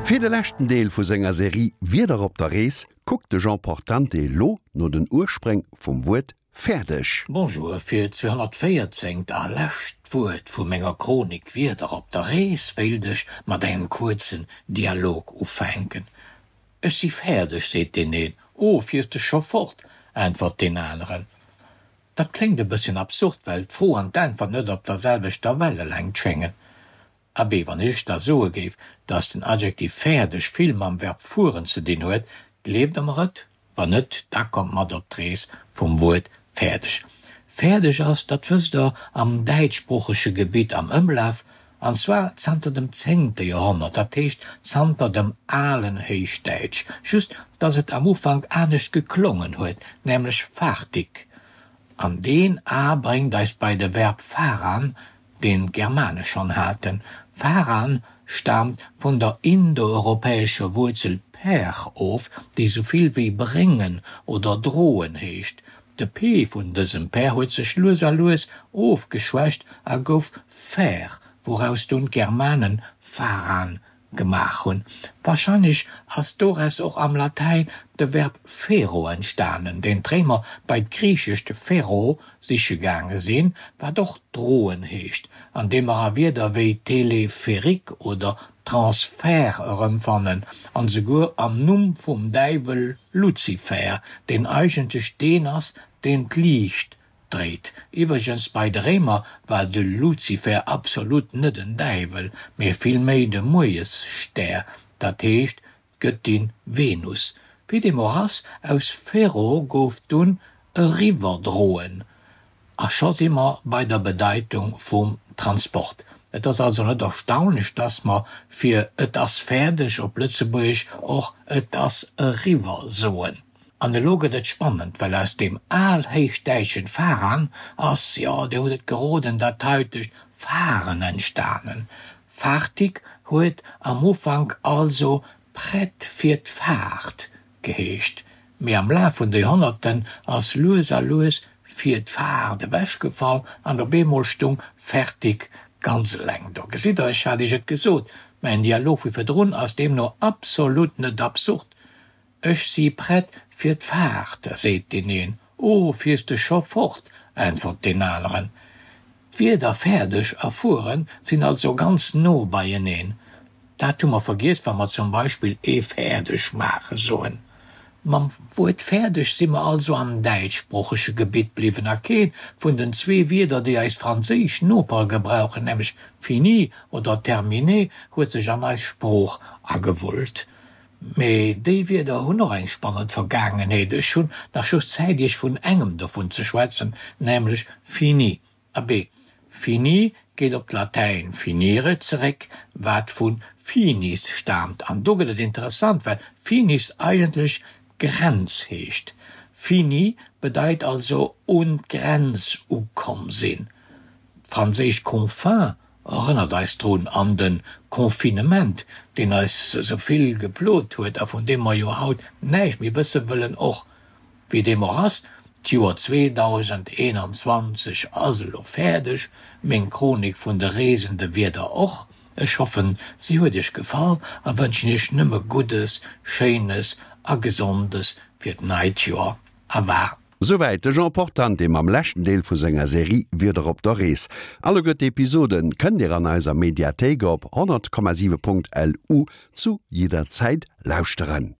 Fir de leschten Deel vu senger Serie Wierder op der Rees kuckt de Jean Portante elo no den Urspréng vum Wuert fäerdeg. Bonjour, fir d'214. A lescht Wuert vu menger Chronik Wierder op der Rees wéilt ech mat engem kuerzen Dialog ufänken. Ech si fäerdeg, seet deen een. Oh, fiers de scho fort? äntwert deen aneren. Dat kléngt e bësschen absurd, well d'Fro an d'Äntwert net op der selwechter Wellelängt schéngen. Abee, wann ech da soe géif, dass den Adjektiv fäerdeg vill mam Verb fueren ze dinn huet, gleeft Der mer et? Wann net, da kommt mat op d'Rees vum Wuert fäerdeg. Fäerdeg ass, dat wësst Der, am däitschsproochege Gebitt am Ëmlaf, an zwar zanter dem zéngte Joerhonnert, dat heescht zanter dem alen Héichdäitsch, just dass et am Ufank anescht geklongen huet, nämlech fartig. An deen a bréngt eis bei de Verb faran, deen d'Germane schonn haten. Faran staamt vun der indoeuropäescher Wuerzel per of, déi sou vill wéi bréngen oder droen heescht. De p vun dësem per huet sech lues a lues ofgeschwächt a gouf fer, wouraus dunn d'Germanen faran gemaach hunn. Warscheinlech ass doraus och am Latäin de Verb fero entstanen, deen d'Réimer bei d'griichescht fero siche gaange sinn, wat och droen heescht, an dee mer a Wierder wéi Téléphérique oder Transfert erëmfannen, an esouguer am Numm vum Däiwel Luzifer, deen eigentlech deen ass, deen d'Liicht dréit. Iwwregens, bei de Réimer war de Luzifer absolut net en Däiwel, mee villméi de Muerjesstär, dat heescht d'Gëttin Venus. Wéi deem och ass, aus Fero gouf dunn eriwwerdroen a scho si mer bei der Bedeitung vum Transport. Et ass also net erstaunlech, dass mer fir et ass fäerdeg op Lëtzebuergesch och et ass eriwwer soen. An elo gëtt et spannend, well aus deem alhéichdäitschen faran ass, jo, Dir hutt et geroden, dat haitegt fahren entstanen. Fartig huet am Ufank also prett fir d'Faart geheescht, mee am Laf vun de Joerhonnerten ass lues a lues fir d'Faart ewechgefall an op eemol stung fertig ganz eleng do. Gesitt Der, ech hat Iech et gesot, mäin Dialog vu virdrun ass deemno absolut net absurd. Ech si prett fir d'Faart, seet deen een. O, fiers de scho fort? äntwert deen aneren. D'Wierder fäerdeg a fueren sinn also ganz no beieneen. Dat hu mer vergiess, wa mer zum Beispill ee fäerdeg maache soen. Mam Wuert fäerdeg si mer also am däitschsproochege Gebitt bliwwen a keent vun den zwee Wierder, déi eis franséisch Nopere gebrauchen, nämlech fini oder terminé, huet sech an eis Sprooch agewullt. Mee déi Wierder hunn och eng spannend Vergaangenheet. Ech hunn nach just Zäit Iech vun engem dovun ze schwätzen, nämlech fini. Abee, fini geet op d'Latäin finire zeréck, wat vu finis staamt. An do gëtt et interessant, well finis eigentlech Grenz heescht. Fini bedeit also un d'Grenz ukomm sinn. D'franséischt confin Erënnert eis drun an de Confinement, deen eis esou vill geplot huet a vun deem mer jo haut näischt méi wësse wëllen. Och wéi deem och ass, d'Joer 2021 ass elo fäerdeg, meng Chronik vun de reesende Wierder och. Ech hoffen, si huet iech gefall a wënschen iech nëmme Guddes, Schéines a Gesondes fir d'neit Joer. A war. Souwäit de Jean Portante mam leschten Deel vu senger Serie Wieder op der Rees. Alleguer d'Episoden kënnt Dir an eiser Mediathéik op 100,7.lu zu jidder Zäit lauschteren.